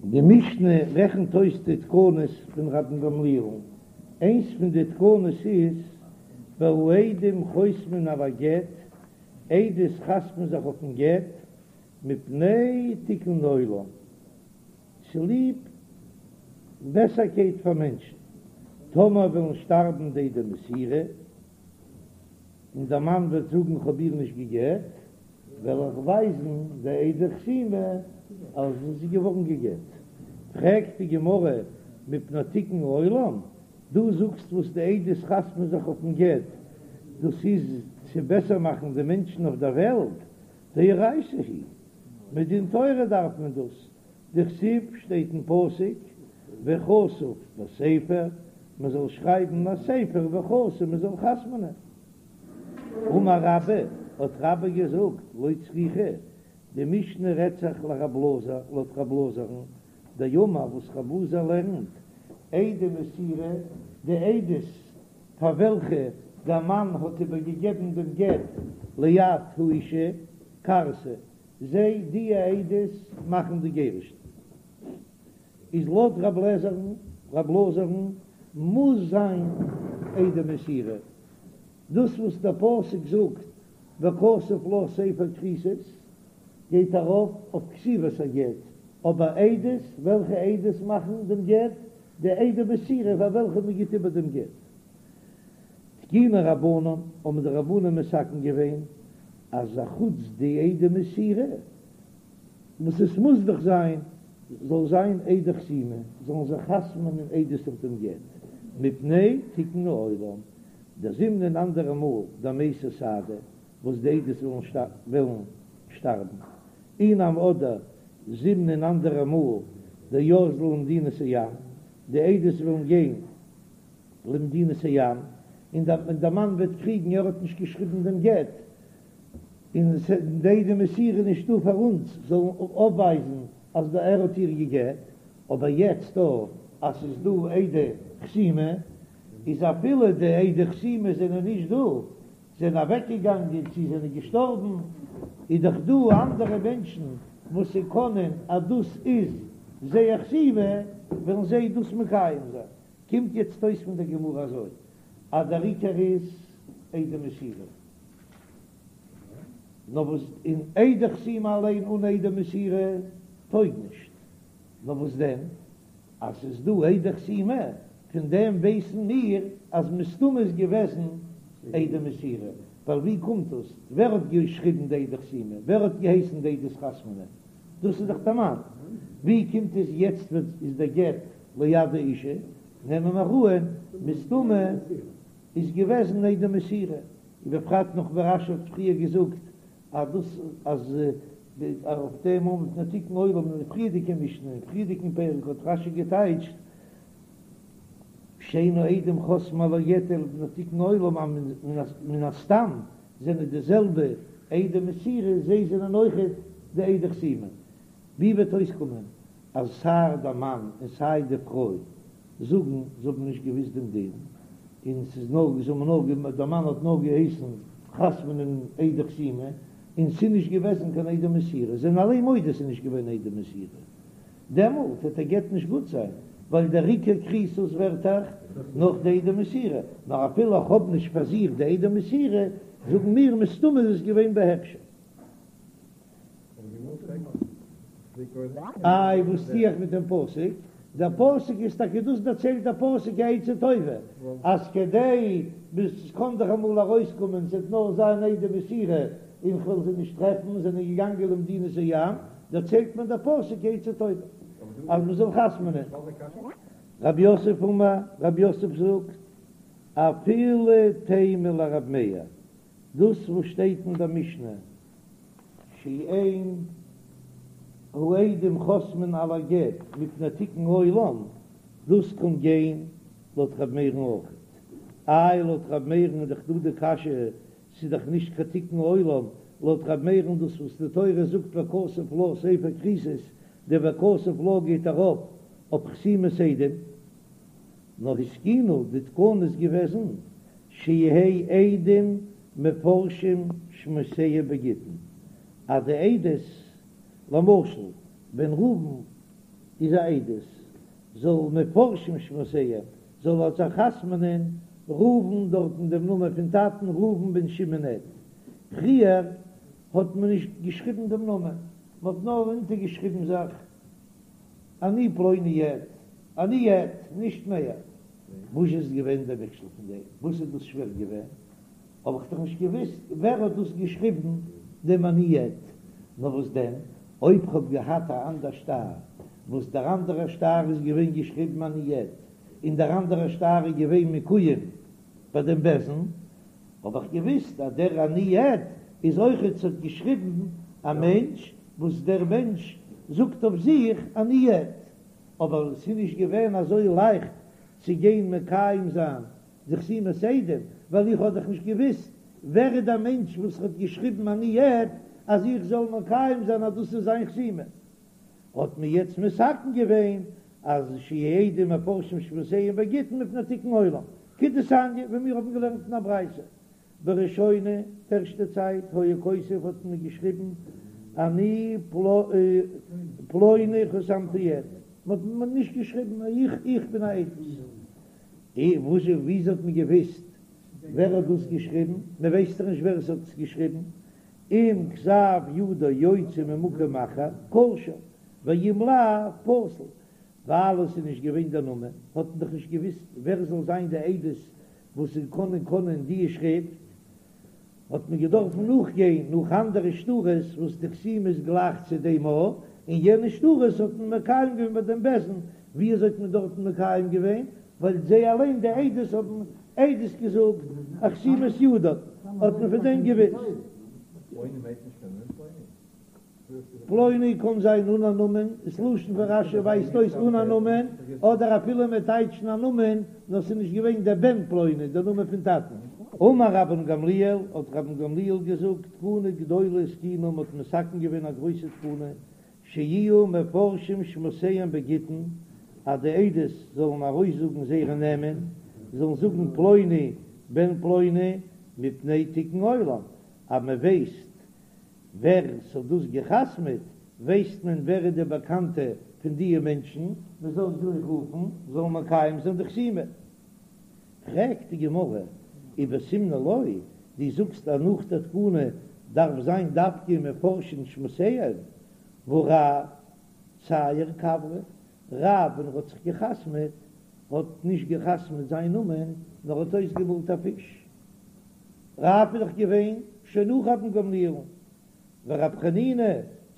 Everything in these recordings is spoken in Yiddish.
די משנה רעכנט אויס די תקנות פון רבן גמליאל'ן, איינס פון די תקנות איז והעדים חותמין על הגט, עדות חתמ'ן זיך אויפן גט, מפני תיקון עולם, צוליב בעסערקייט פאר מענטשן, טאמער וועלן שטארבן די עדי מסירה, און דער מאן וועט זאגן כ'האב איר נישט גע'גט, וועל איך ווייזן די עדי חתימה אז זי איז געווארן גע'גט. פרעגט די גמרא מפני תיקון עולם, דו זאגסט וואס די עדות חתמ'ן זיך אויפן גט, דאס איז צו בעסער מאכן די מענטשן אויף דער וועלט, דאורייתא היא, מדין תורה דארף מען דאס, דכתיב שטייט אין פסוק וכתוב בספר, מען זאל שרייבן א ספר וחתום מען זאל חתמ'נען. אמר רבה, האט רבה געזאגט, לא צריכא, די משנה רעדט זיך לרב אלעזר, לויט רב אלעזר'ן, דאמר וואס רב אלעזר לערנט, עדי מסירה, די עדות פאר וועלכע דער מאן האט איבערגעגעבן דעם גט ליד האישה, כרתי, זיי, די עדות, מאכן די גירושין. איז לויט רב לעזער'ן, רב אלעזר'ן, מוז זיין עדי מסירה. דאס וואס דער פסוק זאגט וכתוב לה ספר כריתות גייט ארויף אויף כתיבת הגט, אבער עדות, וועלכע עדות מאכן דעם גט? די עדי מסירה פאר וועלכע מען גיט איבער דעם גט. תקינו רבנן, האבן די רבנן מתקן געווען אז אחוץ די עדי מסירה, וואס עס מוז דאך זיין, זאל זיין עדי חתימה, זאלן זיך חתמ'נען עדות אויף דעם גט, מפני תיקון העולם, דזימנין אנדערע מאל דמייתי סהדי, וואס די עדות וועלן שטארבן, אי נמי אדער זימנין אנדערע מאל דאזלי למדינת הים, די עדות וועלן גיין למדינת הים, און דער מאן וועט קריגן ער האט נישט געשריבן דעם גט, און די עדי מסירה נישטא פאר אונז זאלן אויפווייזן אז ער האט איר גע'גט, אבער יעצט דא אז ס'איז דא עדי חתימה, איז אפילו די עדי חתימה זענען נישט דא, זענען אוועקגעגאנגען צי זענען געשטארבן, איז דאך דא אנדערע מענטשן וואס ס'קענען אז דאס איז זייער חתימה, וועלן זיי דאס מקיים זיין. קומט יעצט אויס פון דער גמרא אזוי, אז דער עיקר איז עדי מסירה. נאר וואס און עדי חתימה אליין אן עדי מסירה טויג נישט. נאר וואס דען אז ס'איז דא עדי חתימה, פון דעם ווייסן מיר אז מסתמא איז געוועזן עדי מסירה, ווייל ווי קומט דאס? ווער האט געשריבן די עדי חתימה? ווער האט געהייסן די עדות חתמ'נען? דאס איז דאך דער מאן. ווי קומט עס יעצט ווען איז דער גט ליד האישה? נעמען מיר אן מסתמא איז געוועזן עדי מסירה, ובפרט נאך ווי רש"י האט פריער געזאגט אז דאס אז אויף דעם מפני תיקון עולם אין די פריערדיגע משנה אין פריערדיגן פרק האט רש"י געטייטשט שאין העדים חותמין על הגט אלא מפני תיקון עולם אז מן הסתם זענען די זעלבע עדי מסירה זיי זענען אויכעט די עדי חתימה. ווי וועט אויסקומען אז סיי דער מאן און סיי די פרוי זאגן זיי האבן נישט געוויסט דעם דין, און ס'איז נאר זיי האבן נאר דער מאן האט נאר געהייסן חתמ'נען עדי חתימה, און ס'איז נישט געוועזן קיין עדי מסירה, זיי זענען אליין מודה ס'איז נישט געווען עדי מסירה, דעמאלט וועט דער גט נישט גוט זיין, ווייל דער עיקר כריתות ווערט דאך נאך די עדי מסירה, נאר אפילו איך האב נישט פאר זיך די עדי מסירה, זאגן מיר מסתמא איז עס געווען בהקשן. איי וואס טו איך מיט דעם פסוק? דער פסוק איז טאקע דאס דערציילט דער פסוק א עצה טובה, אז כדי ביז עס קען דאך אמאל ארויסקומען ס'וועט נאר זיין עדי מסירה און כ'וועל זיי נישט טרעפן, זענען געגאנגען למדינת הים, דערציילט מען דער פסוק א עצה טובה אז מ'זאל חתמ'נען. רב יוסף אמר, רב יוסף זאגט, אפילו תימא לרב מאיר, דאס וואס שטייט אין דער משנה שאין העדים חותמין על הגט מפני תיקון עולם, דאס קען גיין לויט ר' מאיר'ן אויך. איי לויט ר' מאיר'ן איז דאך דא די קשיא, ס'איז דאך נישט קיין תיקון עולם, לויט ר' מאיר'ן דאס וואס די תורה זאגט וכתוב לה ספר כריתות, די וכתוב לה גייט ארויף אויף חתימת עדים, נאר התקינו די תקנה איז געוועזן שיהא עדים מפרשים שמותיהם בגיטין, אז די עדות, למשל ווען ראובן. איז א עדות, זאל מפרשים שמותיהם, זאל ער זיך חתמ'נען ראובן דארטן דעם נאמען פון טאטן ראובן בן שמעון עד. פריער האט מען נישט געשריבן דעם נאמען, מען האט נאר אונטערגעשריבן זיך אני פלוני עד, אני עד, נישט מער. וואס איז געווען דער מכשול פון דעם? וואס איז דאס שווער געווען? האב איך דאך נישט געוואוסט ווער האט דאס געשריבן דעם אני עד. נאר וואס דען אויב כ'האב געהאט א אנדער שטר וואס דער אנדערער שטר איז געווען געשריבן אני עד, און דער אנדערער שטר איז געווען מקוים ביי דעם בית דין, האב איך געוואוסט אז דער אני עד איז אויכעט ס'האט געשריבן א מענטש וואס דער מענטש זאגט אויף זיך אני עד, אבער ס'איז נישט געווען אזוי לייכט צו גיין מקיים זיין די חתימת עדים, ווייל איך האב דאך נישט געוואוסט ווער איז דער מענטש וואס האט געשריבן אני עד אז איך זאל מקיים זיין אז דאס איז זיין חתימה. האט מען יעצט מתקן געווען אז שיהו עדים מפרשים שמותיהם בגיטין מפני תיקון עולם, כדתניא ווי מיר האבן געלערנט אין א ברייתא, בראשונה, די ערשטע צייט, היה כותב האט מען געשריבן אני פלוני חתמתי עד, מען האט נישט געשריבן איך איך בין א עדות, וואס וויאזוי האט מען געוויסט ווער האט דאס געשריבן, מען ווייסט דאך נישט ווער עס האט עס געשריבן, אם כתב ידו יוצא ממקום אחר כשר ואם לאו פסול, ווייל עס איז נישט געווען דער נאמען האט מען דאך נישט געוויסט ווער זאל זיין די עדות וואס זיי קענען קענען די שריפט, האט מען געדארפן נאכגיין נאך אנדערע שטרות וואס די חתימה איז גלייך צו דעם א, און יענע שטרות האט מען מקיים געווען ביי דעם בית דין, ווי אזוי האט מען דארטן מקיים געווען? ווייל זיי אליין די עדות האבן עדות געזאגט א חתימת ידו, האט מען פון דעם געוויסט. פלוני קען זיין אן א נאמען, דאס לשון פון רש"י ווייזט אויס אן א נאמען, אדער אפילו מען טייטשן א נאמען, נאר ס'איז נישט געווען דער בן פלוני, דער נאמען פון טאטן. אמר רבן גמליאל, האט רבן גמליאל געזאגט, תקנה גדולה התקינו, מ'האט מתקן געווען א גרויסע תקנה, שיהיו מפרשים שמותיהם בגיטין, אז די עדות זאלן ארויסזאגן זייערע נעמען, זאלן זאגן פלוני בן פלוני, מפני תיקון עולם, אז מען ווייסט ווער ס'האט דאס גע'חתמ'עט, ווייסט מען ווער איז די באקאנטע פון דיע מענטשן, מען זאל זיי רופן, זאלן מקיים זיין די חתימה. פרעגט די גמרא, ובסימנא לא, דו זאגסט אז נאך די תקנה דארף זיין דווקא מפרשין שמותיהם, והא רב צייר כוורא, רב ווען ער האט זיך גע'חתמ'עט האט נישט גע'חתמ'עט זיין נאמען נאר האט אויסגעמאלט א פיש, רב איז דאך געווען שוין נאך רבן גמליאל'ן, ורב חנינא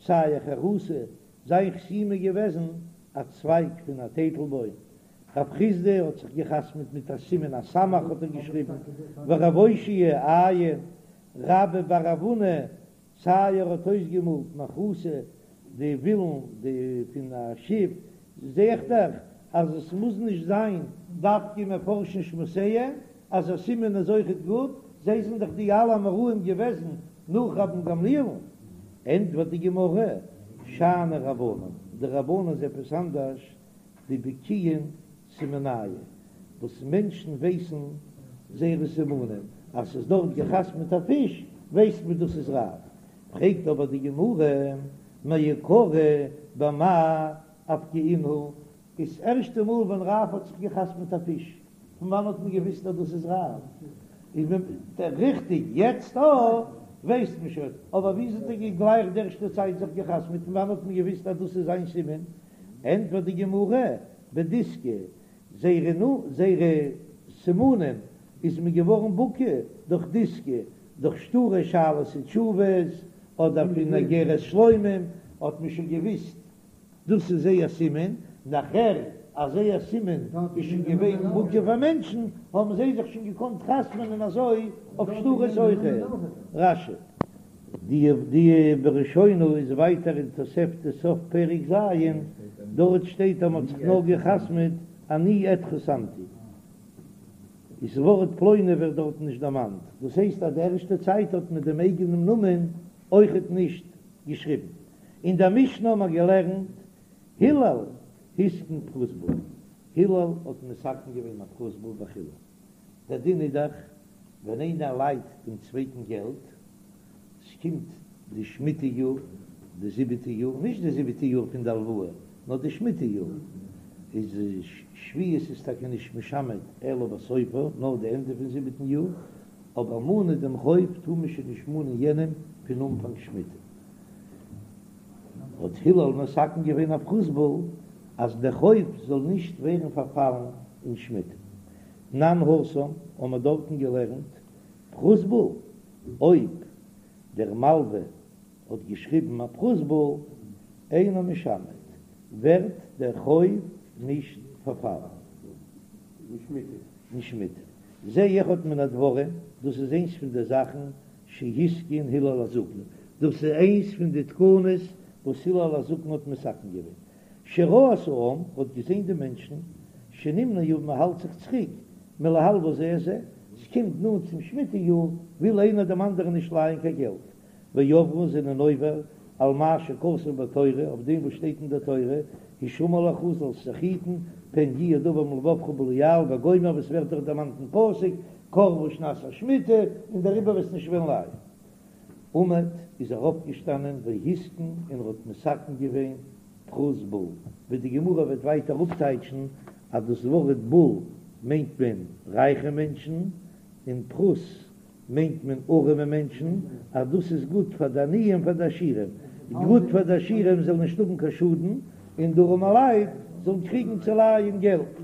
צייר חרותא, זיין חתימה איז געוועזן א צווייג פון א טייטלבוים, רב חסדא האט זיך געחתמעט מיט א סימן א סמך האט ער געשריבן, ורב אושעיא עין, רבה בר רב הונא צייר האט אויסגעמאלט מחתא די ווילן די פון א שיף, זע איך דאך אז עס מוז נישט זיין דווקא מפרשין שמותיהם אז א סימן איז אויכעט גוט, זיי זענען דאך די אלע אמוראים געוועזן נאך רבן גמליאל'ן. ענטפערט די גמרא, שאני רבנן, די רבנן איז עפעס אנדערש, דבקיאין סימנייהו, וואס מענטשן ווייסן זייערע סימנים, אז ס'איז דארט געחתמעט א פיש, ווייסט מען דאס איז רב. פרעגט אבער די גמרא, מעיקרא במאי אפקעינהו, איז ערשטע מאל ווען רב האט זיך געחתמעט א פיש, פון וואנען האט מען געוויסט אז דאס איז רב? איז מען ריכטיג יעצט אויך ווייסט מען שוין, אבער וויאזוי האט ער גלייך די ערשטע צייט זיך געחתמעט, פון וואנען האט מען געוויסט אז דאס איז זיין סימן? ענטפערט די גמרא, בדיסקי, זייערע נו זייערע סימנים איז מען געווארן בקי דורך דיסקי, דורך שטרי שאלות ותשובות, אדער פון אגרת שלומים האט מען שוין געוויסט דאס איז זייער סימן, נאכער אז זייער סימן איז שוין געווען מוכר פאר מענטשן, האבן זיי זיך שוין געקאנט חתמ'נען אזוי אויף שטרות אויכעט. רש"י. די די בראשונה איז ווייטער אין תוספתא סוף פרק ז', דארט שטייט אז מען האט זיך נאר געחתמ'עט אני עד חתמתי, איז ווארט פלוני ווערט דארטן נישט דערמאנט, דאס הייסט אז די ערשטע צייט האט מען דעם אייגענעם נאמען אויכעט נישט געשריבן. אין דער משנה האט מען געלערנט הלל התקין פרוזבול, הלל האט מתקן געווען א פרוזבול וכו', דער דין איז דאך ווען איינער לייט דעם צווייטן געלט, ס'קומט די שמיטה יאר, די זיבעטע יאר, נישט די זיבעטע יאר פון די הלוואה, נאר די שמיטה יאר איז שביעית איז טאקע נישט משמט אלא בסופה, נאר די ענדע פון זיבעטן יאר, אבער מאנען דעם חוב טאר מען שוין נישט מאנען יענעם פון אנפאנג שמיטה. האט הלל מתקן געווען א פרוזבול אז דער חוב זאל נישט ווערן פארפאלן אין שמיטה. תנן התם האבן מיר דארטן געלערנט פרוזבול, אויב דער מלווה האט געשריבן א פרוזבול אינו משמט, ווערט דער חוב נישט פארפאלן אין שמיטה. זה אחד מן הדברים, דאס איז איינס פון די זאכן שהתקין הלל הזקן, דאס איז איינס פון די תקנות וואס הלל הזקן האט מתקן געווען, שראה את העם, האט געזען די מענטשן, שנמנעו מען האלט זיך צוריק, מלהלוות זה את זה, ס'קומט נאנט צום שמיטה יאר, וויל איינער דעם אנדערן נישט לייען קיין געלט, ועברו זענען עובר על מה שכתוב בתורה, אויף דעם וואס שטייט אין דער תורה, השמר לך זאלסט זיך היטן, פן יהיה דבר מלבבך בליעל וגומר וואס ווערט דאך דערמאנט אין פסוק, קרבה שנת השמיטה, און דעריבער וועסט נישט וועלן לייען. עמד איז ער אויפגעשטאנען והתקין און ער האט מתקן געווען פרוזבול, ווי די גמרא וועט ווייטער אפטייטשן אז דאס ווארט בול מיינט מען רייכע מענטשן, און פרוז מיינט מען ארעמע מענטשן, אז דאס איז גוט פאר די עניים פאר די עשירים, גוט פאר די עשירים זאלן נישט האבן קיין שאדן, און די ארעמע לייט זאלן קריגן צו לייען געלט.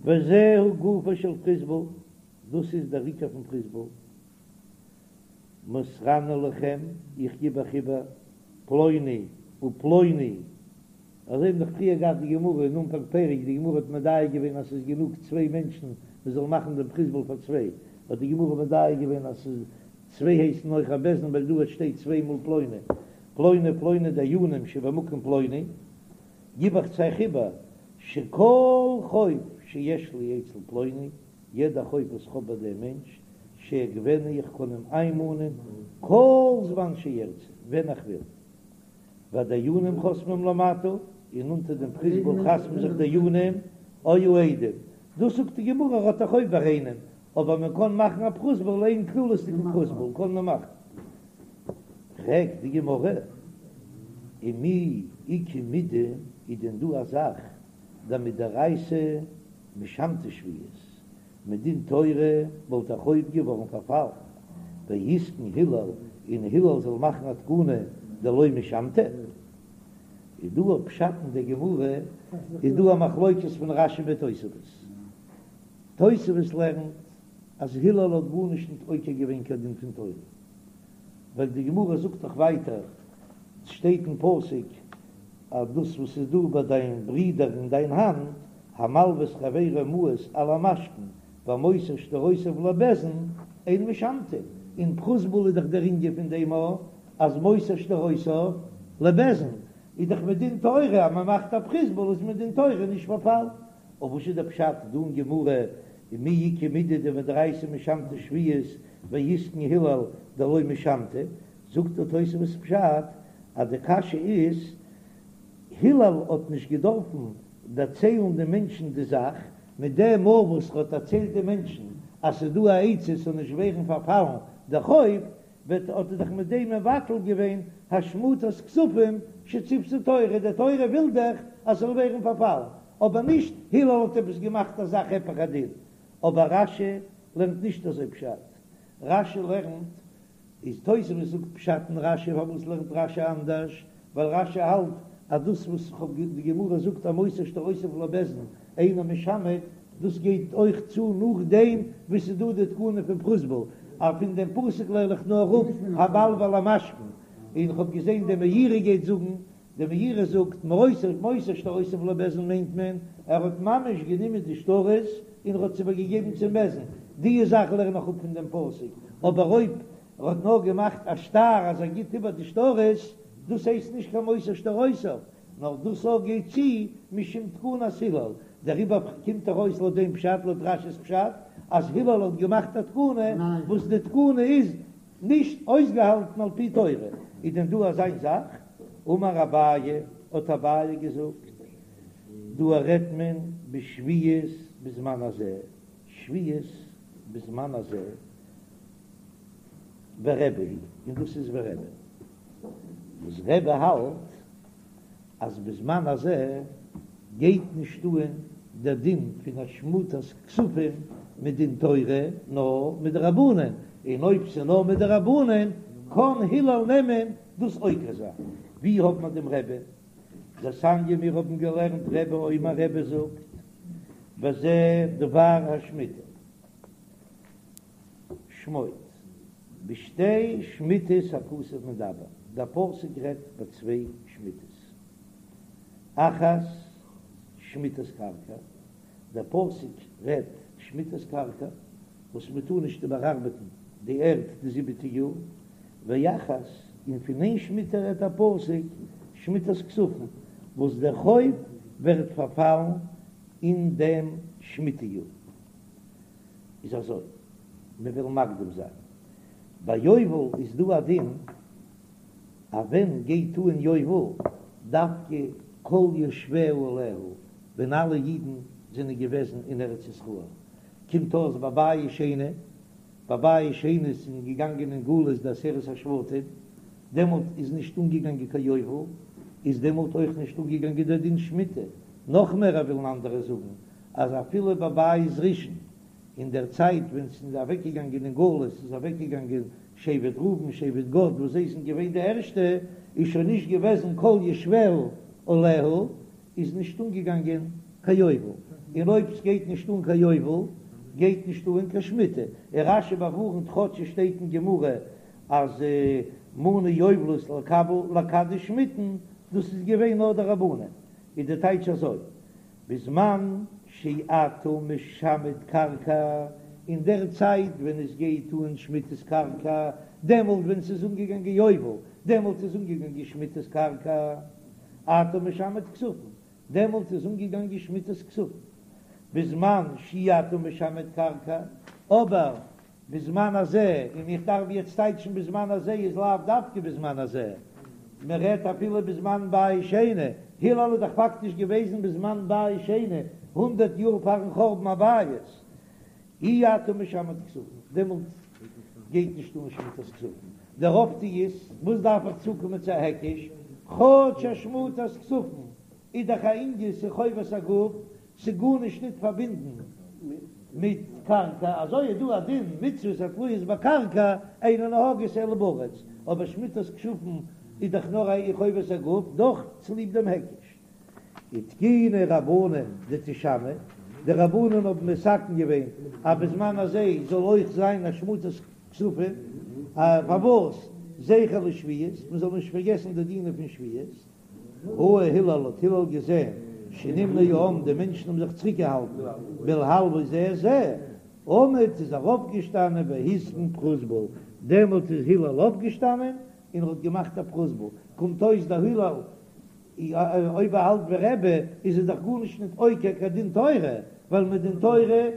וזהו גופו של פרוזבול, דאס איז דער עיקר פון פרוזבול, מוסרני לכם, איך גיב אייך איבער, פלוני ופלוני, אזוי האבן דאך פריער געהאט די גמרא אין אנפאנג פרק, די גמרא האט מדייק געווען אז ס'איז גענוג צוויי מענטשן מען זאל מאכן דעם פרוזבול פאר צוויי, האט די גמרא מדייק געווען אז ס'איז צוויי הייסן אויך א בית דין ווייל דא שטייט צוויי מאל פלוני, פלוני ופלוני דיינים שבמקום פלוני, גיב איך צו אייך איבער שכל חוב שיש לי אצל פלוני, יעדע חוב וואס כ'האב ביי דעם מענטש, שאגבנו איך קען אים איינמאנען כל זמן שארצה, ווען איך וויל. והדיינים חותמים למטה, און אונטער דעם פרוזבול חתמ'ן זיך דיינים או העדים. דאס זאגט די גמרא ער האט א חוב ביי איינעם, אבער מען קען מאכן א פרוזבול איין כללות'דיגן פרוזבול קען מען מאכן. פרעגט די גמרא, ומי איכא מידי, איז דען דא א זאך דמדאורייתא משמטא שביעית, מדין תורה וואלט א חוב געווארן פארפאלן, והתקין הלל און הלל זאל מאכן א תקנה דלא משמטא. איז דא א פשט אין די גמרא, איז דא א מחלוקת פון רש"י מיט תוספות. תוספות לערנט אז הלל האט גארנישט ניט עוקר געווען קיין דין פון תורה, ווייל די גמרא זאגט דאך ווייטער, ס'שטייט אין פסוק אז דאס וואס איז דא ביי דיין ברודער אין דיין האנט, המלוה את חברו מעות על המשכון והמוסר שטרותיו לבית דין אין משמטין, אין פרוזבול איז דאך דער ענין פון דעם א אז מוסר שטרותיו לבית דין איז דאך מדין תורה אז מען מאכט א פרוזבול איז מדין תורה נישט פארפאלן. אבער וואס איז דער פשט דא אין גמרא ומי איכא מידי דמדאורייתא משמטא שביעית והתקין הלל דלא משמטא, זאגט דער תוספות פשט אז די קשיא איז הלל האט נישט געדארפן דערציילן די מענטשן די זאך, מיט דעם מאל וואס ער האט דערציילט די מענטשן אז ס'איז דא א עצה ס'זאל נישט ווערן פארפאלן דער חוב, וועט האט ער דאך מיט דעם מבטל געווען השמטת כספים שציוותה תורה, די תורה וויל דאך אז ס'זאל ווערן פארפאלן, אבער נישט הלל האט עפעס געמאכט א זאך היפך הדין, אבער רש"י לערנט נישט אזוי פשט, רש"י לערנט איז תוספות זאגט פשט אין רש"י פארוואס לערנט רש"י אנדערש ווייל רש"י האלט אז דאס וואס כ'האב די גמרא זאגט המוסר שטרותיו לבית דין אינו משמט דאס גייט אויך צו נאכדעם וואס ס'איז דא די תקנה פון פרוזבול אז פון דעם פסוק לערן איך נאר אפ המלוה על המשכון און כ'האב געזען די מאירי גייט זאגן די מאירי זאגט מוסר מוסר שטרותיו לבית דין מיינט מען ער האט ממש גענומען די שטרות און ער האט עס איבערגעגעבן צום בית דין, די זאך לערן איך אפ פון דעם פסוק, אבער אויב ער האט נאר געמאכט א שטר אז ער גיבט איבער די שטרות, דאס הייסט נישט קיין מוסר שטרותיו, נאר דאס אויך גייט צו משום תקנת הלל, דעריבער קומט ארויס לויט דעם פשט, לויט רש"י'ס פשט, אז הלל האט געמאכט א תקנה וואס די תקנה איז נישט אויסגעהאלטן על פי תורה, איז דען דא אזיין זאך? אמר אביי, האט אביי געזאגט, דא רעדט מען בשביעית בזמן הזה, שביעית בזמן הזה, ורבי היא, און דאס איז ווי רבי, וואס רבי האלט. אז בזמן הזה גייט נישט אהן דער דין פון השמטת כספים מדין תורה נאר מדרבנן, און אויב ס'איז נאר מדרבנן קען הלל נעמען דאס עוקר זיין. ווי האט מען דעם רבי'ן? דתניא מיר האבן געלערנט רבי אומר רבי זאגט בזה דבר השמיטה שמוט בשתי שמיטות הכתוב מדבר, דער פסוק רעדט ביי צוויי שמיטות, אחת שמיטת קרקע, דער פסוק רעדט שמיטת קרקע וואס מען טאר נישט איבערארבעטן די ערד די זיבעטע יאר, ואחת, און פון איין שמיטה רעדט דער פסוק שמיטת כספים וואס דער חוב ווערט פארפאלן אין דעם שמיטה יאר. איז אזוי, מען וויל מקדים זיין, ביי יובל איז דא א דין אז ווען גייט אן יובל דווקא כל יושביה עליה, ווען אלע אידן זענען געוועזן אין ארץ ישראל, קומט אויס ביי בית שני, ביי בית שני זענען געגאנגען אין גלות די עשרת השבטים, דעמאלט איז נישט אנגעגאנגען קיין יובל, איז דעמאלט אויך נישט אנגעגאנגען דער דין שמיטה, נאך מער ווילן אנדערע זאגן אז אפילו ביי בית ראשון אין דער צייט ווען ס'איז אוועקגעגאנגען אין גלות איז אוועקגעגאנגען שבט ראובן שבט גד וואס זיי זענען געווען די ערשטע, איז שוין נישט געוועזן כל יושביה עליה, איז נישט אנגעגאנגען קיין יובל, און אויב ס'גייט נישט אן קיין יובל גייט נישט אן קיין שמיטה, און רש"י באווארנט כאטש עס שטייט אין גמרא אז מנו יובלות לקבל לקדש שמיטין, דאס איז געווען נאר דרבנן, איז די טייטש אזוי, בזמן שאתה משמט קרקע, אין דער צייט ווען עס גייט אן שמיטת קרקע, דעמאלט ווען ס'איז אנגעגאנגען יובל, דעמאלט איז אנגעגאנגען שמיטת קרקע, אתה משמט כספים, דעמאלט איז אנגעגאנגען שמיטת כספים, בזמן שאי אתה משמט קרקע, אבער בזמן הזה, און איך דארף יעצט טייטשן בזמן הזה איז לאו דווקא בזמן הזה, מען רעדט אפילו בזמן בית שני, הלל איז דאך פאקטיש געוועזן בזמן בית שני, הונדערט יאר פארן חורבן הבית, אי אתה משמט כספים, דעמאלט גייט נישט אן שמיטת כספים, דער אויפטו איז, וואס דארף איך צוקומען צו א היקש, כאטש השמטת כספים איז דאך א ענין ס'איז חובת הגוף, ס'איז גארנישט ניט פארבינדן מיט קרקע, אזוי איז דא א דין מצוות התלויות בקרקע אינן נוהגות אלא בארץ, אבער שמיטת כספים איז דאך נאר א חובת הגוף, דאך צוליב דעם היקש. ותקינו רבנן דתישמט, די רבנן האבן מתקן געווען אז בזמן הזה זאל אויך זיין השמטת כספים, פארוואס? זכר לשביעית, מען זאל נישט פארגעסן די דינים פון שביעית. ראה הלל האט הלל געזען שנמנע העם די מענטשן האבן זיך צוריקגעהאלטן מלהלוות זה את זה, עמד איז ער אויפגעשטאנען והתקין פרוזבול, דעמאלט איז הלל אויפגעשטאנען און ער האט געמאכט א פרוזבול, קומט אויס דער הלל אויב ער האלט ווי רבי איז ער דאך גארנישט ניט עוקר קיין דין תורה, ווייל מדין תורה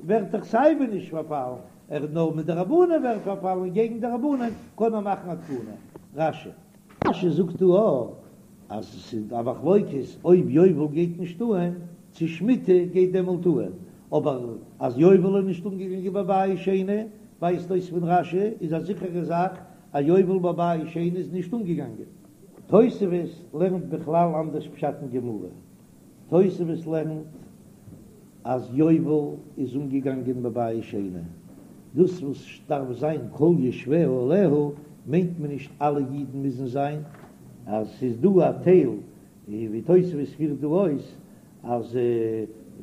ווערט דאך סייווי נישט פארפאלן, ער נאר מדרבנן ווערט פארפאלן און געגן די רבנן קען ער מאכן א תקנה. רש"י. רש"י זאגט דא אויך אז עס איז א מחלוקת אויב יובל גייט נישט אהן צו שמיטה גייט דעמאלט אהן, אבער אז יובל איז נישט אנגעגאנגען בבית שני ווייזט אויס פון רש"י איז א זיכערע זאך אז יובל בבית שני איז נישט אנגעגאנגען. תוספות לערנט בכלל אנדערש פשט אין גמרא, תוספות לערנט אז יובל איז אנגעגאנגען בבית שני, דאס וואס דארף זיין כל יושביה עליה מיינט מען נישט אלע אידן מוזן זיין, אז ס'איז דא א טייל ווי תוספות פירט דא אויס אז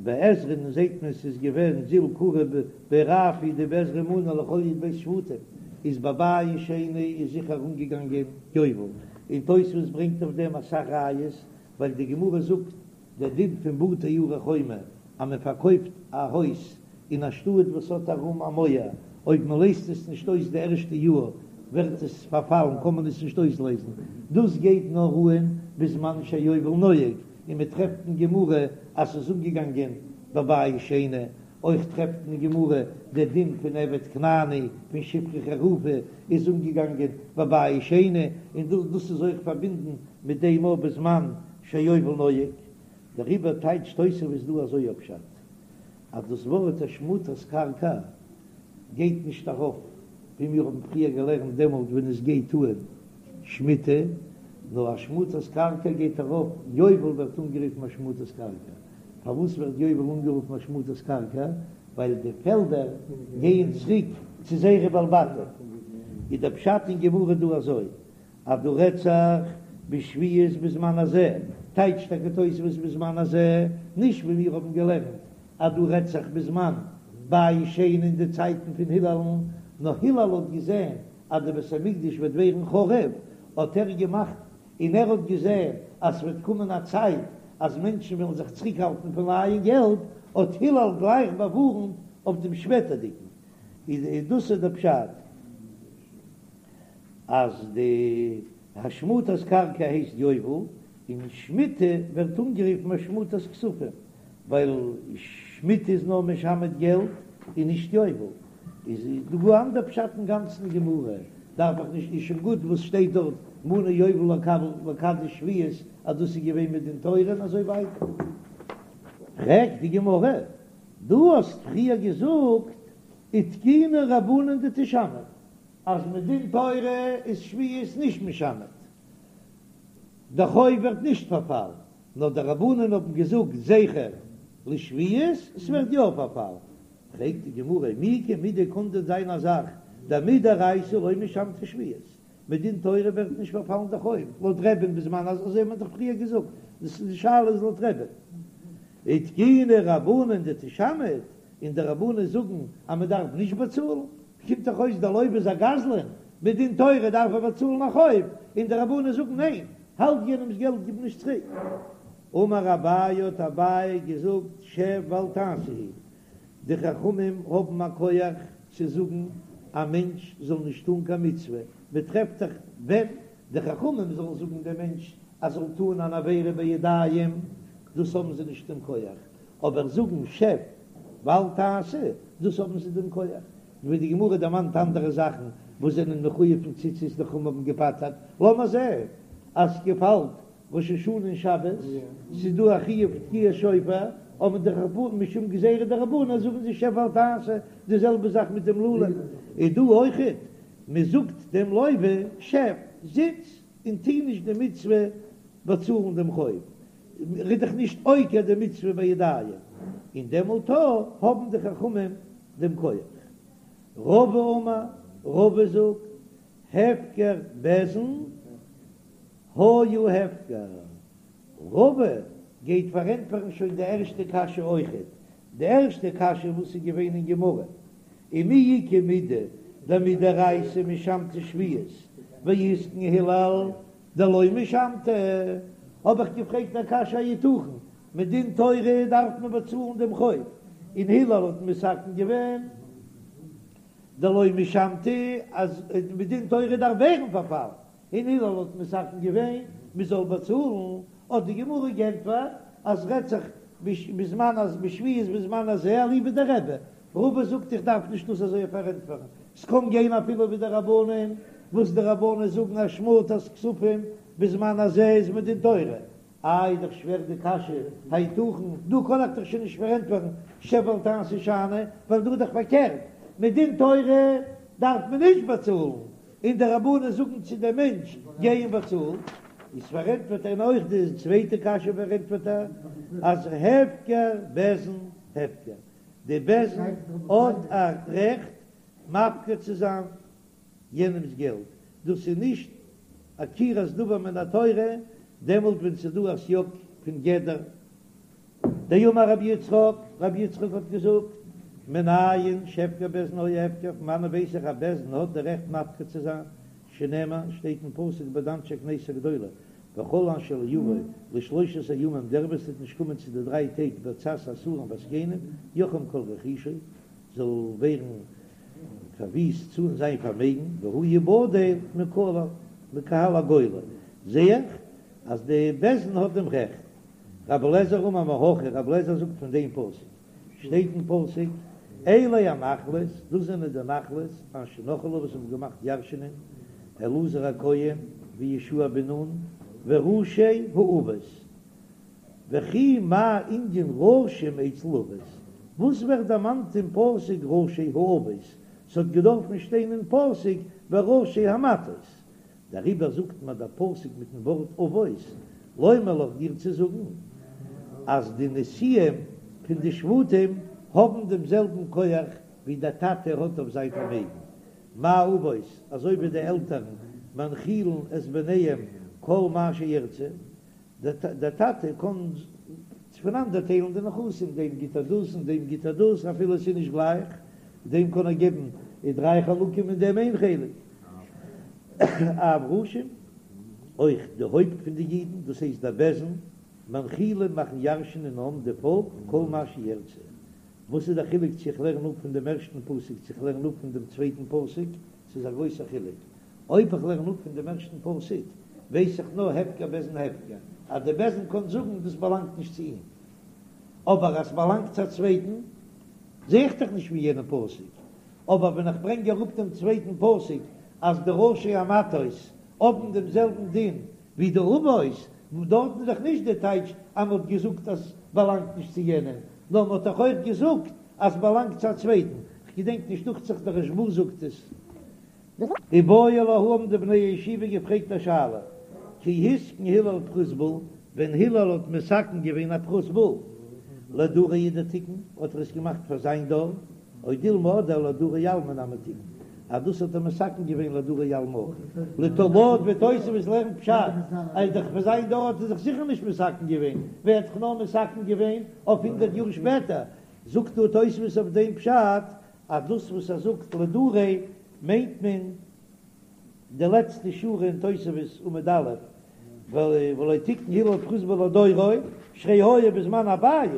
ביי עזרא'ן זעט מען ס'איז געווען זיל קרי בי רב הוא דבעזרא מנו לכל י"ב שבטים, איז בבית שני איז זיכער אנגעגאנגען יובל, און תוספות ברענגט אויף דעם אסאך ראיות, ווייל די גמרא זאגט דער דין פון בתי ערי חומה אז מען פארקויפט א הויז אין א שטאט וואס האט ארום א מויער, אויב מען לייזט עס נישט אויס די ערשטע יאר ווערט עס פארפאלן קען מען עס נישט אויסלייזן, דאס גייט נאר אהן בזמן שהיובל נוהג, און מען טרעפט אין גמרא אז ס'איז אנגעגאנגען בבית שני, אויך טרעפט אין גמרא דער דין פון עבד כנעני פון שפחה חרופה איז אנגעגאנגען בבית שני, און דאס איז אויך פארבינדן מיט דעם אויך בזמן שהיובל נוהג, דעריבער טייטשט תוספות דא אזוי א פשט אז דאס ווארט השמטת קרקע גייט נישט ארויף ווי מיר האבן פריער געלערנט דעמאלט ווען עס גייט אהן שמיטה. נאר השמטת קרקע גייט ארויף, יובל ווערט אנגערופן השמטת קרקע, פארוואס ווערט יובל אנגערופן השמטת קרקע? ווייל די פעלדער גייען צוריק צו זייערע בעלי בתים. איז דער פשט אין גמרא דא אזוי, אז דא רעדט זיך בשביעית בזמן הזה, טייטשט טאקע תוספות בזמן הזה, נישט ווי מיר האבן געלערנט אז דא רעדט זיך בזמן בית שני אין די צייטן פון הילל'ן, נאר הילל האט געזען אז די בית המקדש וועט ווערן חרוב, האט ער געמאכט, און ער האט געזען אז ס'וועט קומען א צייט אז מענטשן וועלן זיך צוריקהאלטן פון לייען געלט, האט הילל גלייך באווארנט אויף דעם שפעטערדיגן. איז דאס איז דער פשט אז די השמטת קרקע הייסט יובל, און שמיטה ווערט אנגערופן השמטת כספים, ווייל שמיטה איז נאר משמט געלט און נישט יובל. איז דא גאר אנדער פשט אין גאנצן גמרא, דארף איך נישט, איז שוין גוט וואס שטייט דארט מנה יובל לקדש שביעית אז דאס איז געווען מדין תורה און אזוי ווייטער. פרעגט די גמרא, דו האסט פריער געזאגט ותקינו רבנן דתשמט אז מדין תורה איז שביעית נישט משמט, די חוב ווערט נישט פארפאלן, נאר די רבנן האבן געזאגט זכר לשביעית, ס'ווערט יא פארפאלן. פרעגט די גמרא, מי איכא מידי קאן דען זיין א זאך דמדאורייתא לא משמטא שביעית, מדין תורה ווערט נישט פארפאלן די חוב, לויט רבי'ן בזמן הזה, אזוי האט מען דאך פריער געזאגט, דאס איז די שאלה איז לויט רבי'ן. ותקינו רבנן דתשמט, און די רבנן זאגן אז מען דארף נישט באצאלן, קומט דאך אויס דער לוה איז א גזלן, מדין תורה דארף ער באצאלן א חוב, און די רבנן זאגן ניין, האלט יענעמס געלט גיב נישט צוריק. אמר אביי האט אביי געזאגט שב ואל תעשה הוא, די חכמים האבן א כח צו זאגן א מענטש זאל נישט טון קיין מצוה, מען טרעפט דאך ווען די חכמים זאלן זאגן דעם מענטש אז זאל טון אן עבירה בידיים, דאס האבן זיי נישט דעם כח, אבער זאגן שב ואל תעשה, דאס האבן זיי דעם כח, ווי די גמרא דערמאנט אנדערע זאכן וואס זענען מחויב פון ציצית די חכמים האבן געפטר'ט, לאמיר זען אז ס'געפאלט ראש השנה און שבת, ס'איז דא א חיוב תקיעת שופר, אבער די רבנן משום גזירה דרבנן זאגן זיי שב ואל תעשה, די זעלבע זאך מיט דעם לולב, איז דא אויכעט, מען זאגט דעם לוה שב, זיץ און טוה נישט די מצוה באצאלן דעם חוב, ר'איז דאך נישט עוקר די מצוה בידיים, און דעמאלט האבן די חכמים דעם כח. רבא אמר, רבא זאגט, הפקר בית דין היה הפקר. רבא גייט פארענטפערן שוין די ערשטע קשיא אויכעט, די ערשטע קשיא וואס איז געווען אין גמרא, ומי איכא מידי דמדאורייתא משמטא שביעית ואיתקן הלל דלא משמטא, האב איך געפרעגט א קשיא היתכן מדין תורה דארף מען באצאלן דעם חוב, און הלל האט מתקן געווען דלא משמטא אז מדין תורה דארף ווערן פארפאלן, און הלל האט מתקן געווען מען זאל באצאלן, האט די גמרא גענטפערט אז רעדט זיך בזמן אז בשביעית בזמן הזה אליבא דרבי, רבא זאגט איך דארף נישט דאס אזוי פארענטפערן, ס'קען גיין אפילו ווי די רבנן, וואס די רבנן זאגן השמטת כספים בזמן הזה איז מדין תורה, איי איז דאך שווער די קשיא, היתכן, דא קען איך דאך שוין נישט פארענטפערן שב ואל תעשה שאני, ווייל דא איז דאך פארקערט, מדין תורה דארף מען נישט באצאלן, און די רבנן זאגן צו דעם מענטש גיי און באצאל, איז פארענטפערט ער אויך די צווייטע קשיא פארענטפערט ער אז הפקר בית דין הפקר, די בית דין האט א רעכט מפקיר צו זיין יענעמס געלט, דאס איז נישט עקירת דבר מן התורה, דעמאלט ווען ס'איז דא א סייג פון גדר. דאמר רבי יצחק, רבי יצחק האט געזאגט, מנין שהפקר בית דין היה הפקר, פון וואנען ווייס איך אז בית דין האט די רעכט מפקיר צו זיין, שנאמר, שטייט אין פסוק ביי די אנשי כנסת הגדולה, וכל אשר לא יבוא לשלושת הימים, דער וואס וועט נישט קומען צו די דריי טעג בעצת השרים והזקנים, יחרם כל רכושו, זאל ווערן פארוויסט צו זיין פארמעגן, והוא יבדל מקהל הגולה, זע איך אז די בית דין האט דעם רעכט. רבי אליעזר אמר מהכא, רבי אליעזר זאגט פון דעם פסוק, שטייט אין פסוק, אלה הנחלות, דאס זענען די נחלות, אשר נחלו וואס האבן געמאכט ירשענען, אלעזר הכהן ויהושע בן נון וראשי האבות. וכי מה ענין ראשים אצל אבות? וואס ווערט דערמאנט אין פסוק ראשי האבות? ס'האט געדארפן שטיין אין פסוק וראשי המטות. דעריבער זאגט מיר דער פסוק מיטן ווארט אבות, לומר לך דיר צו זאגן אז די נשיאים פון די שבטים האבן דעם זעלבן כח ווי דער טאטע האט אויף זיין פארמעגן, מה אבות, אזוי ווי די עלטערן מנחילין את בניהם כל מה שירצה, דער טאטע קען פונאנדערטיילן די נכסים, דעם גיט ער דאס און דעם גיט ער דאס, אפילו עס איז נישט גלייך, דעם קען ער געבן דריי חלקים און דעם איין חלק. אף ראשים, אויך די הויפט פון די אידן, דאס הייסט דער בית דין, מנחילין מאכן ירש'ענען העם די פאלק כל מה שירצה. וואס איז דער חילוק צו איך לערן אפ פון דעם ערשטן פסוק צו איך לערן אפ פון דעם צווייטן פסוק? ס'איז א גרויסער חילוק. אויב איך לערן אפ פון דעם ערשטן פסוק, ווייס איך נאר הפקר בית דין הפקר, אז דער בית דין קען זאגן דאס באלאנגט נישט צו אים. אבער אז ס'באלאנגט צו א צווייטן, זע איך דאך נישט פון יענעם פסוק. אבער ווען איך ברענג אראפ דעם צווייטן פסוק אז די ראשי המטות האבן דעם זעלבן דין ווי די אבות, דארטן איז דאך נישט די טייטש אז מ'האט געזאגט אז ס'באלאנגט נישט צו יענעם, נאר מ'האט דאך אויך געזאגט אז ס'באלאנגט צו א צווייטן. כ'געדענק נישט, דוכט זיך דער רשב"א זאגט עס. איבעיא להו האבן די בני הישיבה געפרעגט א שאלה, כי התקין הלל פרוזבול, ווען הלל האט מתקן געווען א פרוזבול לדריה הוא דתיקן, האט ער עס געמאכט פאר זיין דור, או דילמא אדער לדרי עלמא נמי תיקן, אז דאס האט ער מתקן געווען לדרי עלמא אויך, לויט ווי תוספות לערנט פשט, אז דאך פאר זיין דור האט ער זיך זיכער נישט מתקן געווען, ווער האט זיך נאר מתקן געווען אויף הונדערט יאר שפעטער, זאגט דא תוספות אויף דעם פשט אז דאס וואס ער זאגט לדריה מיינט מען די לעצטע שורה אין תוספות עמוד א', ולא תיקן הלל פרוזבול לדורו, שהרי היה בזמן הבית,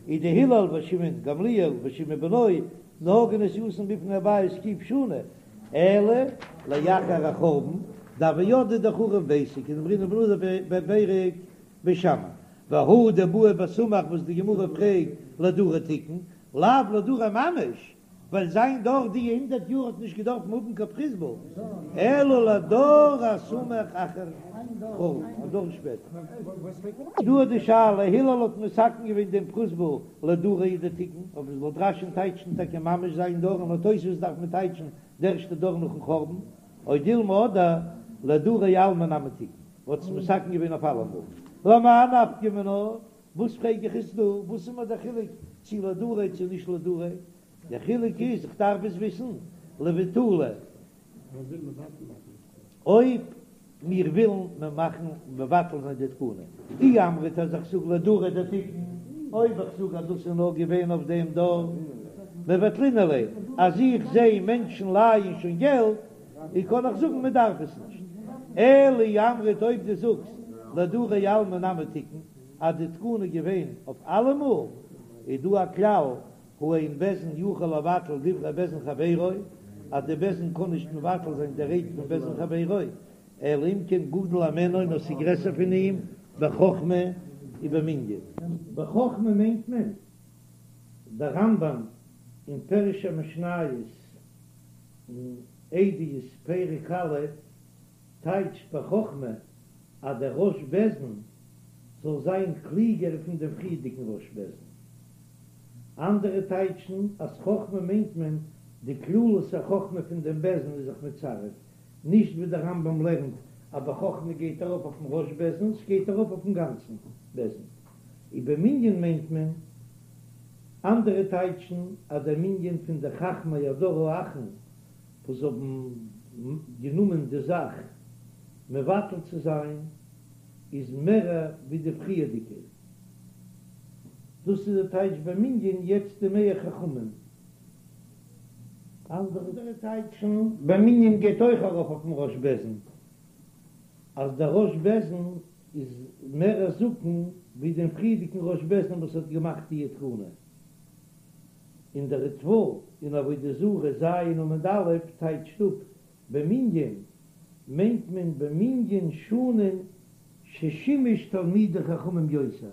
איז דהלל ושמעון גמליאל ושמעון בנו נהגו נסיעתן בפני הבית ק' שנה, אלא לאחר החורבן דהוו ידעי דחרב ביתו כדאמרינן בנזיר בפרק בית שמאי, והא דבעי בסמוך וואס די גמרא פרעגט לדריה תיקן, לאו לדריה ממש, ווייל זיין דור די הונדערט יאר האט נישט געדארפן האבן קיין פרוזבול, אלא לדור הסמוך אחר חורבן, א דור שפעטער. דא איז די שאלה, הלל האט מתקן געווען דעם פרוזבול לדריה הוא דתיקן, אויב עס לויט רש"י'ן טייטשן טאקע ממש זיין דור און לויט תוספות דארף מען טייטשן די ערשטע דור נאכן חורבן, או דילמא אדער לדרי עלמא נמי תיקן, האט עס מתקן געווען אויף אלעמאל, למאי נפקא מינה? וואס פרעג איך עס דא? וואס איז מיר דער חילוק צו לדריה צו נישט לדריה? דער חילוק איז איך דארף עס וויסן לבטולי. אויב מיר ווילן מיר מאכן מבטל זיין די תקנה, אי אמרת אז איך זאג לדריה דתיקן, אויב איך זאג אז דאס איז נאר געווען אויף דעם דור, מבטלינן ליה, אז איך זע מענטשן לייען שוין געלט, און קען איך זאגן מען דארף עס נישט. אלא אי אמרת אויב דו זאגסט לדרי עלמא נמי תיקן, אז די תקנה איז געווען אויף אלעמאל, איז דא א כלל, הא אין בית דין יכול לבטל דברי בית דין חברו, אז די בית דין קען נישט מבטל זיין די רייד פון בית דין חברו, אלא אם כן גדול הימנו נאר ס'איז גרעסער פון אים בחכמה ובמנין. בחכמה מיינט מען דער רמב"ם אין פירוש המשניות אין עדיות פרק א' טייטשט בחכמה אז דער ראש בית דין זאל זיין קלוגער פון דעם פריערדיגן ראש בית דין. אנדערע טייטשן אז חכמה מיינט מען די כללות החכמה פון דעם בית דין איז זיך מצרף, נישט ווי דער רמב"ם לערנט אז בחכמה גייט ארויף אויפן ראש בית דין, ס'גייט ארויף אויפן גאנצן בית דין. ובמנין מיינט מען, אנדערע טייטשן אז דער מנין פון די חכמי הדור האחרון וואס האבן גענומען די זאך מבטל צו זיין איז מערער ווי די פריערדיגע, דאס איז די טייטש במנין יעצט די מער חכמים. אנדערע טייטשן במנין גייט אויך ארויף אויפן ראש בית דין אז דער ראש בית דין איז מער א זקן ווי דעם פריערדיגן ראש בית דין וואס האט געמאכט די תקנה. און דער ריטב"א אין עבודה זרה ז' עמוד א' טייטשט אפ במנין מיינט מען במנין שנים ששימש תלמידי חכמים יותר,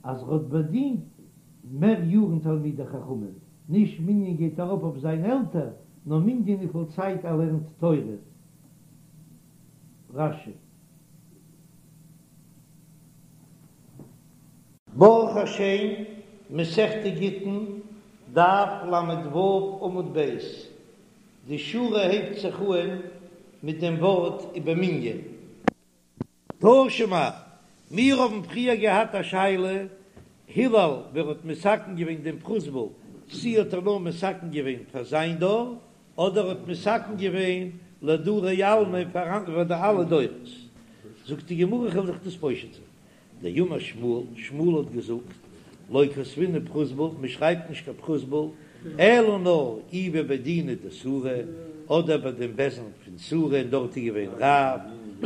אז ר'האט באדינט מער יארן תלמידי חכמים, נישט מנין גייט ארויף אויף זיין עלטער, נאר מנין וויפיל צייט ער לערנט תורה. רש"י. ברוך השם, מסכת גיטין, דף ל"ו עמוד ב', די שורה הייבט זיך אהן. מיט דעם ווארט ובמנין. תא שמע, מיר האבן פריער געהאט א שאלה, הלל ווער האט מתקן געווען דעם פרוזבול, צי האט ער נאר מתקן געווען פאר זיין דור, אדער האט מתקן געווען לדרי עלמא פאר די אלע דורות. זאגט די גמרא כ'וועל זיך דאס פושט זיין, דאמר שמואל, שמואל האט געזאגט, לא כתבינן פרוזבול, מען שרייבט נישט קיין פרוזבול, אלא נאר אי בבי דינא דסורא, אדער ביי דעם בית דין פון סורא און דארט איז געווען רב,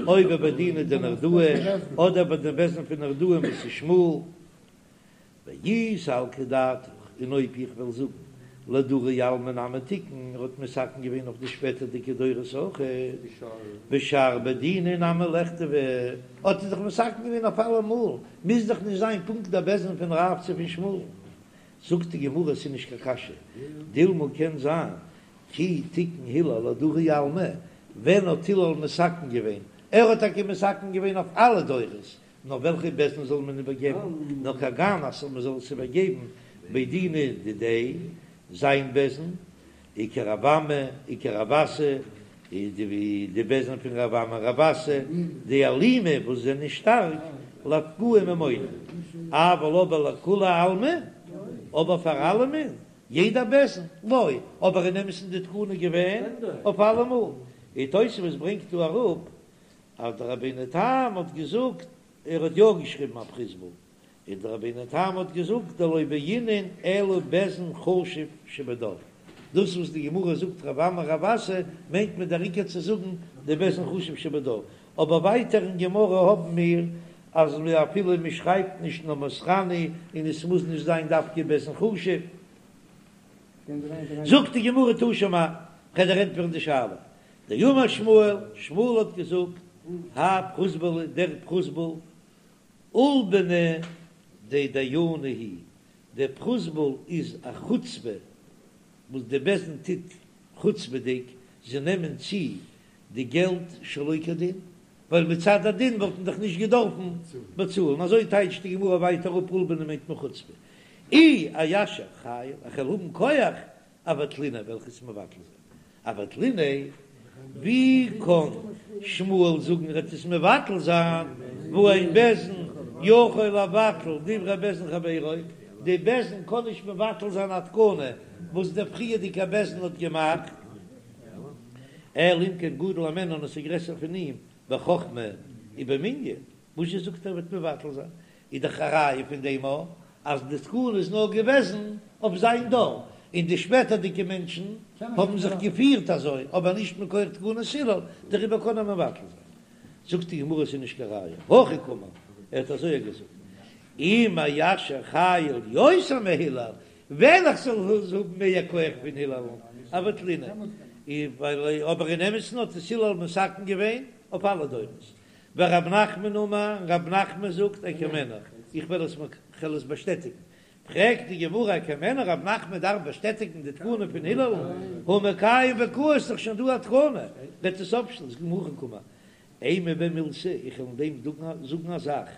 או בבי דינא דנהרדעא, אדער ביי דעם בית דין פון נהרדעא וואס איז שמואל. ואי סלקא דעתך, און אויב איך וועל זאגן לדרי עלמא נמי תיקן, ער האט מתקן געווען אויף די שפעטערדיגע דורות אויך, בשאר בי דיני נמי לכתבו, האט ער דאך מתקן געווען אויף אלעמאל, מוז דאך נישט זיין פונקט דער בית דין פון רב צו פון שמואל. זאגט די גמרא עס איז נישט קיין קשיא, דילמא קען זיין כי תיקן הלל לדרי עלמא, ווען האט הלל מתקן געווען? ער האט טאקע מתקן געווען אויף אלע דורות, נאר וועלכע בית דין זאל מען איבערגעבן? נאר כגון אז מען זאל עס איבערגעבן בי דינא דידיה, זיין בית דין, וכרב אמי, וכרב אסי, די די בית דין פון רב אמי רב אסי, דאלימי וואס זענען שטארק, לאפקועי ממונא, אבל אבער לכולי עלמא, אבער פאר אלעמען, יעדע בית דין, לא, אבער אין אמת'ן די תקנה געווען אויף אלעמאל, און תוספות ברענגט דא אראפ אז דער רבינו תם האט געזאגט, ער האט יא געשריבן א פרוזבול, און דער רבינו תם האט געזאגט דלא בעינן אלא בית דין חשוב שבדור, דאס וואס די גמרא זאגט רב אמי רב אסי מיינט מען דער עיקר צו זאגן די בית דין חשוב שבדור, אבער ווייטער אין גמרא האבן מיר אז אפילו מען שרייבט נישט נאר מוסרני און עס מוז נישט זיין דווקא בית דין חשוב. זאגט די גמרא תא שמע, כ'וועל דיר ענטפערן די שאלה, דאמר שמואל, שמואל האט געזאגט, האי פרוזבולא, דער פרוזבול, עולבנא דדייני הוא, דער פרוזבול איז א חוצפה וואס די בית דין טוט חוצפה'דיג, זיי נעמען צו די געלט שלא כדין, ווייל מצד הדין וואלט מען דאך נישט געדארפן באצאלן, אזוי טייטשט די גמרא ווייטער אפ עולבנא מיינט מען חוצפה, אי איישר חיל, איך וועל האבן כח אבטליניה וועל איך עס מבטל זיין. אבטליניה, ווי קען שמואל זאגן ער וועט עס מבטל זיין, והא אין בית דין יכול לבטל דברי בית דין חברו, די בית דין קען נישט מבטל זיין א תקנה וואס דער פריערדיגער בית דין האט געמאכט, אלא אם כן גדול הימנו און עס איז גרעסער פון אים בחכמה ובמנין, וואס זשע זאגט ער וועט מבטל זיין, איז דאך א ראיה פון דעם א אז די תקנה איז נאר געוועזן אויף זיין דור, און די שפעטערדיגע מענטשן האבן זיך געפירט אזוי, אבער נישט מכח תקנת הלל, דעריבער קען ער מבטל זיין. זאגט די גמרא ס'איז נישט קיין ראיה, הכי קאמר, ער האט אזוי געזאגט, אם איישר חיל יותר מהלל, ווען איך זאל האבן מער כח פון הלל, אבטליניה, אבער אין אמת'ן האט עס הלל מתקן געווען אויף אלע דורות, ורב נחמן אמר, רב נחמן זאגט אקיימנה, איך וועל עס כ'וועל עס באשטעטיגן. פרעגט די גמרא אקיימנה, רב נחמן דארף באשטעטיגן די תקנה פון הלל, הא מקיים וקאי איז דאך שוין דא א תקנה, וועט עס אפשטעלן, זאגט די גמרא הכי קאמר, אימא ביה מילתא, איך וועל אין דעם זאגן א זאך,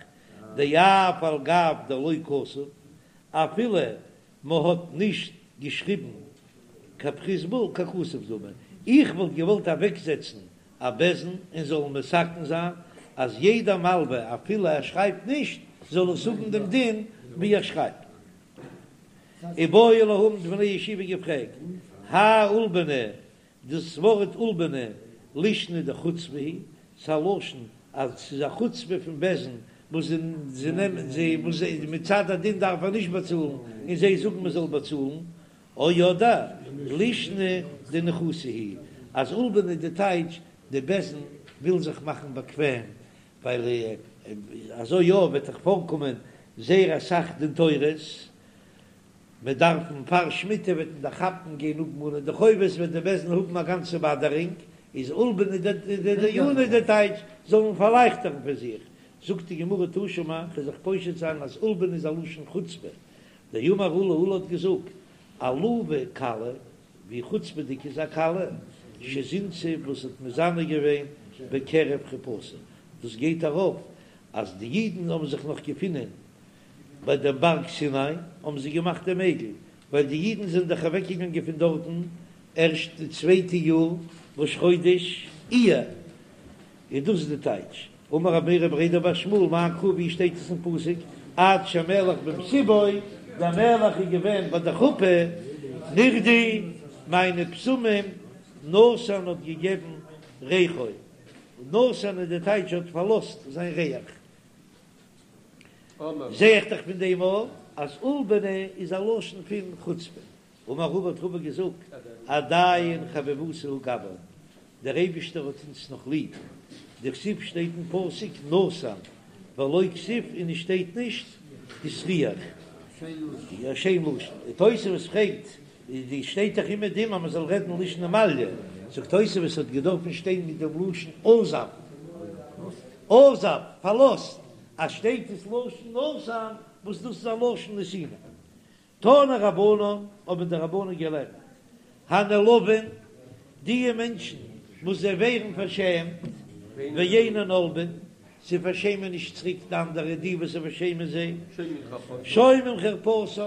דאף על גב דלא כתב, אפילו מען האט נישט געשריבן קיין פרוזבול ככתוב דמי, איך וואלט געוואלט אוועקזעצן א בית דין און זאלן מתקן זיין אז יעדע מלווה אפילו ער שרייבט נישט זאל עס האבן דעם דין ווי ער שרייבט. איבעיא להו האבן די בני ישיבה געפרעגט, האי עולבנא, דאס ווארט עולבנא לישנא דחוצפא היא, ס'איז א לשון אז ס'איז א חוצפה פון בית דין וואס זיי נעמען זיי וואס זיי מצד הדין דארף ער נישט באצאלן און זיי זאגן מען זאל באצאלן, או אדער לישנא דניחותא היא, אז עולבנא איז די טייטש די בית דין וויל זיך מאכן באקוועם ווייל אזוי יא וועט דאך פארקומען זייער אסאך דין תורות, מען דארף פאר שמיטה וועט מען דאך כאפן גיין אפמאנען די חובות וועט די בית דין האבן א גאנצע באדערינג, איז עולבנא דדייני די טייטש זאלן פארלייכטערן פאר זיך, זאגט די גמרא תא שמע, כ'וועל זיך פושט זיין אז עולבנא איז א לשון חוצפה, דאמר עולא עולא האט געזאגט, עלובה כלה, ווי חוצפה'דיג איז א כלה, שזינתה וואס האט מזנה געווען בקרב חופתה, דאס גייט ארויף אז די אידן האבן זיך נאך געפונען ביי דעם בארג סיני האבן זיי געמאכט דעם עגל, ווייל די אידן זענען דאך אוועקגעגאנגען פון דארטן ערשט די צווייטע יאר ראש חודש. איר, איז דאס די טייטש, אמר רב מרי בריה דבר שמואל מאי קרא ווי שטייט עס אין פסוק עד שהמלך במסיבו, דער מלך איז געווען ביי די חופה, נרדו מיינע בשמים נתן האט געגעבן ריחו, נתן איז די טייטש האט פארלאזט זיין ריח, זע איך דאך פון דעם אויך אז עולבנא איז א לשון פון חוצפה. אמר רבא האט רבא געזאגט, עדיין חביבותא הוא גבן, דער אייבישטער האט אונז נאך ליב, דכתיב שטייט אין פסוק נתן ולא כתיב און עס שטייט נישט הסריח, א שיין לשון, און תוספות פרעגט, די שטייט דאך אומעדום אז מען זאל רעדן לישנא מעליא, זאגט תוספות האט געדארפן שטיין מיט דעם לשון עזב, עזב, פארלאזט, אז שטייט עס לשון נתן וואס דאס איז א לשון נתינה. תנו רבנן, האבן די רבנן געלערנט, הנעלבין, די מענטשן וואס זיי ווערן פארשעמט, ואינן עולבין, זיי פארשעמען נישט צוריק די אנדערע, די וואס זיי פארשעמען זיי, שומעים חרפתם,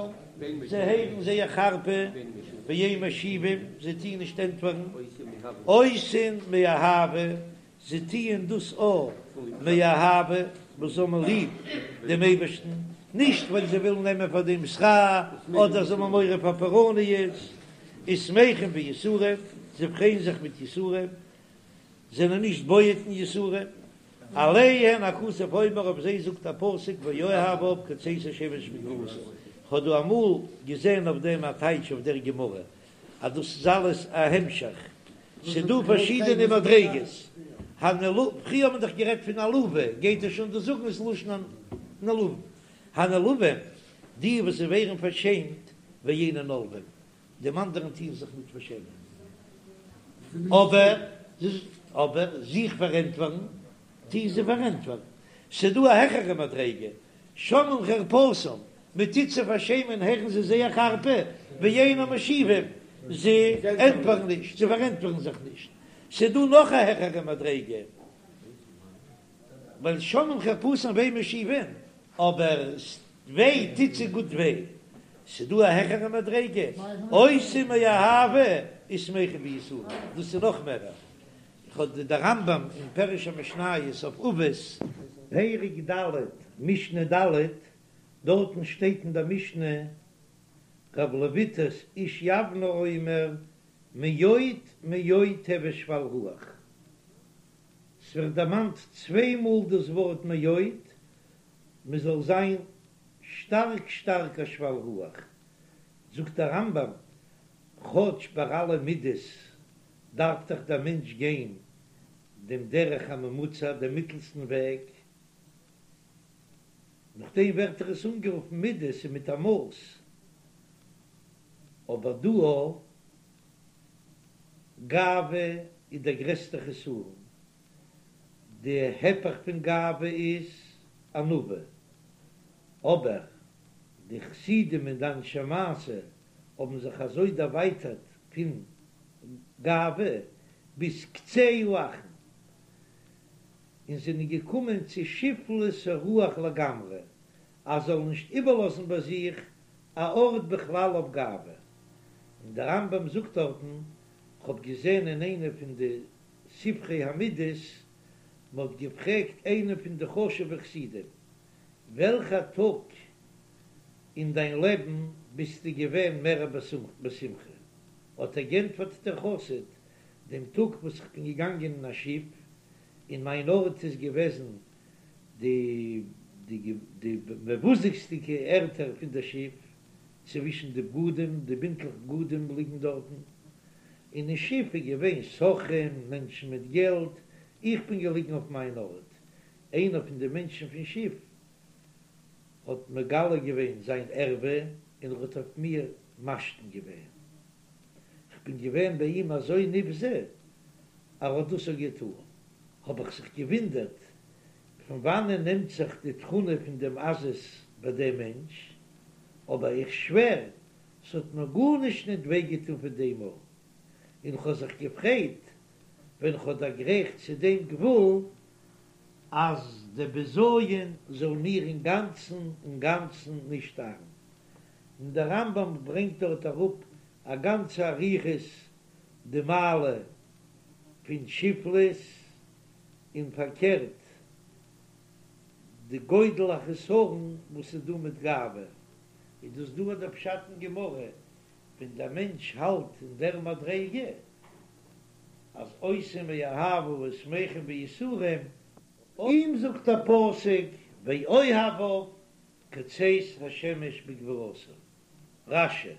זיי הערן זייער חרפה, ואין משיבים, זיי טוען נישט ענטפערן, עושין מאהבה, זיי טוען דאס אויך מאהבה, וואס זיי האבן ליב דעם אייבערשטן, נישט ווייל זיי ווילן נעמען פאר דעם שכר, אדער זיי האבן מורא פאר פורעניות, ושמחים ביסורים, זיי פרייען זיך מיט יסורים, זענען נישט בועט אין יסורים, עליהן הכתוב אומר, אויף זיי זאגט א פסוק ואוהביו כצאת השמש בגבורתו, כ'האב דא אמאל געזען אויף דעם א טייטש אויף דער גמרא, אז דאס איז אלעס א המשך, ס'איז דא פארשידענע מדריגות, הנעל, פריער האט מען דאך גערעדט פון עלובה, גייט ער שוין דא זאגן עס לשון נעלבים, הנעלבים, די וואס זיי ווערן פארשעמט, ואינן עולבים, דעם אנדערן טוען זיך ניט פארשעמען, אבער אבער זיך פארענטפערן טוען זיי פארענטפערן, ס'איז דא א העכערע מדריגה, שומעים חרפתם, מען טוט זיי פארשעמען הערן זיי זייער חרפה, ואינן משיבים, זיי ענטפערן נישט, זיי פארענטפערן זיך נישט. ס'איז דא נאך א העכערע מדריגה, ווייל שומעים חרפתם ואין משיבים, אבער וויי טוט זיי גוט וויי. ס'איז דא א העכערע מדריגה, עושים מאהבה ושמחים ביסורים, דאס איז נאך מערער. איך האב די רמב"ם אין פירוש המשניות אויף אבות, פרק ד' משנה ד', דארטן שטייט אין דער משנה רב לויטס איש יבנה אומר מאוד מאוד הוי שפל רוח, ס'ווערט דערמאנט צוויי מאל דאס ווארט מאוד, מ'זאל זיין שטארק שטארק א שפל רוח, זאגט דער רמב"ם, כאטש ביי אלע מידות דארף דאך דער מענטש גיין דעם דרך הממוצע, דעם מיטלסטן וועג, נאכדעם ווערט דאך עס אנגערופן מידות און מיט א מאס, אבער דא גאווה איז דער גרעסטער חסרון, די היפך פון גאווה איז ענווה, אבער די חסידים און די אנשי מעשה האבן זיך אזוי דערווייטערט פון גאווה ביז קצה האחרון, און זענען געקומען צו שפלות הרוח לגמרי, אז זאלן נישט איבערלאזן ביי זיך א ארט בכלל אויף גאווה. און דער רמב"ם זאגט דארטן, כ'האב געזען אין איינע פון די ספרי המידות, מ'האט געפרעגט איינעם פון די חשוב'ע חסידים, וועלכע טאג אין דיין לעבן ביסטו געווען מער בשמחה? האט ער גענטפערט דער חסיד, דעם טאג וואס איך בין געגאנגען אין א שיף, און מיין ארט איז געוועזן די די די מבוזה'דיגע ערטער פון דער שיף, צווישן די בגדים, די בינטלעך בגדים ליגן דארטן, און אין שיף איז געווען סוחרים, מענטשן מיט געלט, איך בין געליגן אויף מיין ארט, איינער פון די מענטשן פון שיף האט מגלה געווען זיין ערווה און ער האט אויף מיר משתין געווען, כ'בין געווען ביי אים אזוי נבזה אז ער האט דאס אויך געטאן, האב איך זיך געווינדערט פון וואנען נעמט זיך די תכונה פון דעם עזות ביי דעם מענטש, אבער איך שווער ס'האט מיר גארנישט ניט וויי געטאן פון דעם אן, און כ'האב זיך געפרייט ווען כ'האב דערגרייכט צו דעם גבול אז דער בזיון זאל מיר אינגאנצן אינגאנצן נישט ארן. און דער רמב"ם ברענגט דארט אראפ א גאנצע אריכות די מעלה. פון שפלות, און פארקערט די גודל החסרון וואס איז דא מיט גאווה, איז דאס דא דער פשט אין גמרא, ווען דער מענטש האלט אין דער מדריגה אז עושים מאהבה ושמחים ביסורים, אים זאגט דער פסוק ואוהביו כצאת השמש בגבורתו. רש"י.